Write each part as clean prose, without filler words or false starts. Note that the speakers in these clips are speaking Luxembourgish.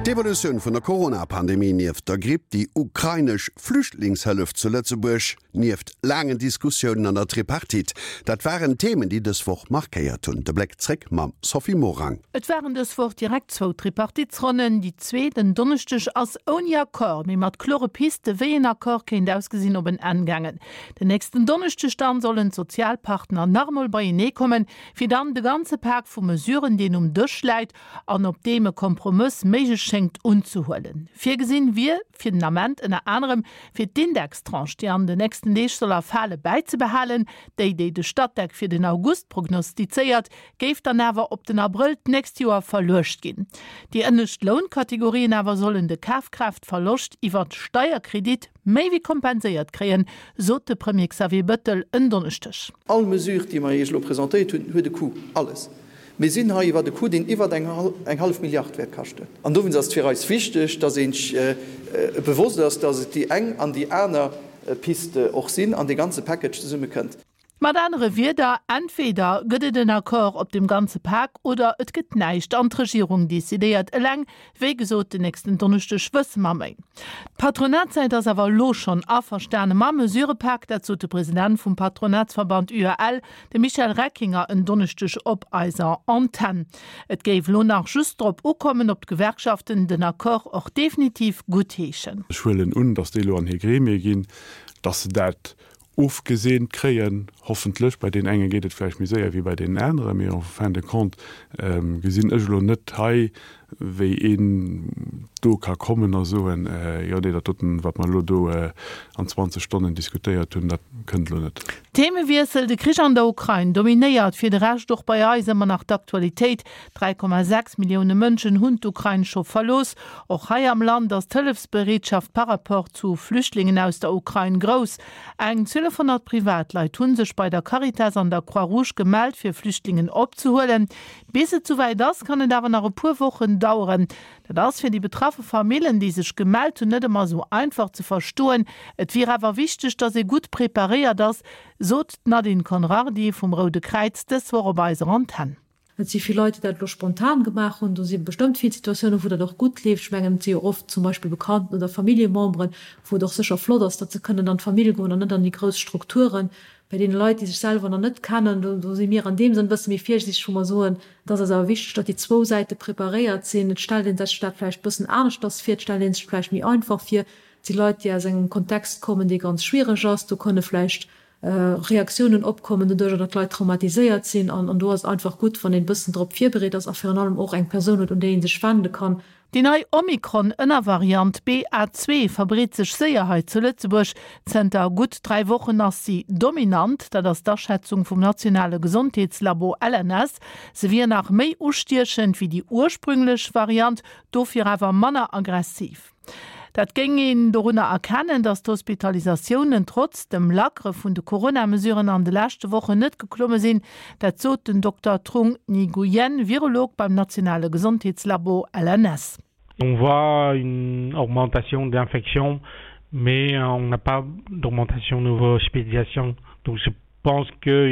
D'Evolutioun vun der Corona-Pandemie nieft der Gripp, déi ukrainesch Flüchtlingshëllef zu Lëtzebuerg nieft laangen Diskussiounen an der Tripartite, dat waren Themen, déi dës Woch markéiert hunn. De Bléck zréck mam Sophie Morang. Et waren dës Woch direkt zwou Tripartitesronnen. Déi zweet en Donneschdeg ass ouni Accord, mee mat klore Piste wéi een Accord kéint ausgesinn, op en Enn gaangen. Den nächsten Donneschdeg dann sollen d'Sozialpartner nach emol beienee kommen, fir dann de ganze Pak vu Mesuren, deen um Dësch läit an op deem e Kompromëss méiglech schéngt, unzehuelen. Virgesinn wier fir den Ament ënner anerem, fir d'Indextranche, déi an den nächsten Deeg soll erfale, bäizebehalen. Déi, déi de Statec fir den August prognostizéiert, géif dann awer op den Abrëll d'nächst Joer verluecht ginn. Déi ënnescht Lounkategorien awer sollen de Kafkraaftverloscht iwwert Steierkredit méi wéi kompenséiert kréien, sot de Premier Xavier Bëttel en Donneschdeg. All Mesure, déi mer Iech elo presentéiert hunn, huet e Coût. Alles. Mir sinn hei iwwert e Coût, deen iwwert eng hallef Milliard wäert kaschten. An dowéinst ass et fir eis wichteg, dass ee sech bewosst ass, dass et déi eng an déi aner Piste och sinn an dee ganze Package zesummekënnt. Mat anere Wierder, Entweder gëtt et en Accord op dem ganze Pak oder et gëtt näischt an d'Regierung decidéiert eleng. Wéi gesot, den nächsten Donneschdeg wësse mer méi. D'Patronatssäit ass awer elo schonn averstane mam Mesurëpak. Dat sot de President vum Patronatsverband UEL, de Michel Reckinger, en Donneschdeg op eiser Antenn. Et géif elo nach just drop ukommen, ob d'Gewerkschaften den Accord och definitiv guttheeschen. Ech huelen un, datt déi elo an hir Gremie ginn, datt se dat ofgeseent kréien, hoffentlech. Bei deenen enge geet et vläicht méi séier wéi bei deenen aneren, mee en fin de compte gesinn ech elo net hei, wéi een do ka kommen a soen, jo nee, dat doten, wat mer elo do an 20 Stonnen diskutéiert hunn, dat kënnt elo net. Themewiessel, De Krich an der Ukrain dominéiert fir de Rescht och bei eis ëmmer nach d'Aktualitéit. 3,6 Millioune Mënschen hunn d'Ukrain scho verlooss. Och hei am Land ass d'Hëllefsbereetschaft par rapport zu Flüchtlingen aus der Ukrain grouss. Eng 1200 Privatleit hu sech bei der Caritas an der Croix-Rouge gemellt, fir Flüchtlingen opzehuelen. Bis et souwäit ass, kann et awer nach e puer Wochen daueren. Dat ass fir déi betraffe Famillen, déi sech gemellt hunn, net ëmmer esou einfach ze verstoen. Et wier awer wichteg, datt ee gutt preparéiert ass, sot d'Nadine Conrardy vum Roude Kräiz dës Woch op eiser Antenn. Et si vill Leit, déi dat elo spontan gemaach hunn. Do si bestëmmt vill Situatiounen, wou dat och gutt leeft. Ech mengen, et si jo oft zum Beispill Bekannten oder Familljememberen, wou et och sécher flott ass, datt se kënnen an d'Famill goen an net an déi grouss Strukturen. Bei deene Leit, déi sech selwer nach net kennen, do do si mir an deem Sënn e bësse méi virsiichteg, wou mer soen, et ass eis awer wichteg, datt déi zwou Säite preparéiert sinn. Et stellt ee sech dat vläicht e bëssen aneschters vir, et stellt ee sech vläicht méi einfach vir. Et si Leit, déi aus engem Kontext kommen, dee ganz schwiereg ass. Do kënne vläicht Reaktiounen opkommen, doduercher datt d'Leit traumatiséiert sinn. An do ass et einfach gutt, wann een e bëssen drop virbereet ass a virun allem och eng Persoun huet, un déi ee sech wende kann. Déi nei Omikron-Ënnervariant BA. 2 verbreet sech séier hei zu Lëtzebuerg. Zënter gutt 3 Wochen ass si dominant, dat ass d'Aschätzung vum nationale Gesondheetslabo LNS. Se wier nach méi ustiechend wéi déi ursprünglech Variant, dofir awer manner aggressiv. Dat géing een dorunner erkennen, datt d'Hospitalisatiounen trotz dem Lackere vun de Corona-Mesuren an de leschte Wochen net geklomme sinn. Dat sot den Dokter Trung Nguyen, Virolog beim nationale Gesondheetslabo LNS. On voit une augmentation d'infections, mais on n'a pas d'augmentation de nouveaux hospitalisations. Donc je pense que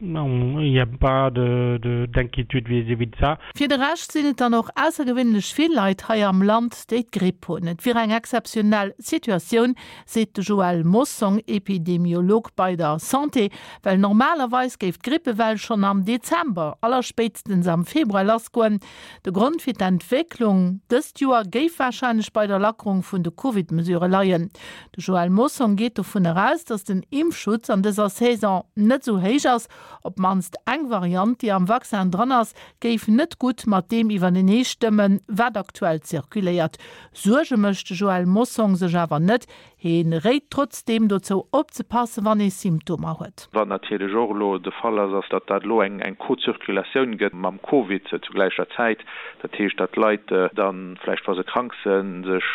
il n'y a pas de d'inquiétude vis-à-vis de ça. Fir de Rescht sinn et dann och aussergewéinlech vill Leit hei am Land, déi d'Gripp hunn. Et wier eng exzeptionell Situatioun, seet de Joël Mossong, Epidemiolog bei der Santé, well normalerweis géif d'Grippewell schonn am Dezember, allerspéitstens am Februar lassgoen. De Grond fir d'Entwécklung dëst Joer géif warscheinlech bei der Lackerung vun de Covid-Mesurë leien. De Joël Mossong geet dovun eraus, datt den Impfschutz an dëser Saison net esou héich ass. Op d'mannst eng Variant, déi am Vaccin dran ass, géif net gutt mat deem iwwertenee stëmmen, wat aktuell zirkuléiert. Suerge mécht de Joël Mossong sech awer net. Heen réit trotzdeem dozou opzepassen, wann ee Symptomer huet. Wat natierlech och elo de Fall ass, ass, datt dat elo eng Co-Zirkulatioun gëtt mam Covid zu gläicher Zäit. Dat heescht, datt d'Leit da vläicht, wa se krank sinn, sech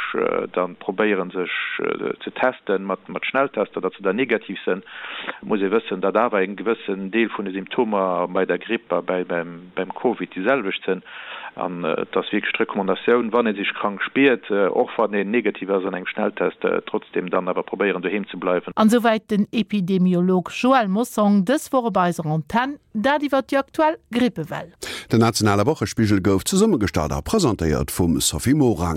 da probéieren, sech ze testen mat Schnelltester, datt se dann negativ sinn. Et muss ee wëssen, datt awer e gewëssen Deel vun de Symptomer bei der Gripp a beim Covid déi selwecht sinn. An et ass wierklech d'Recommandatioun, wann ee sech krank spiert, och wann een negativ ass an engem Schnelltest, trotzdem dann awer probéieren doheem ze bleiwen. An esouwäit den Epidemiolog Joël Mossong dës Woch op eiser Antenn, dat iwwer déi aktuell Grippewell. Den nationale Wochespigel gouf zesummegestallt a presentéiert vum Sophie Morang.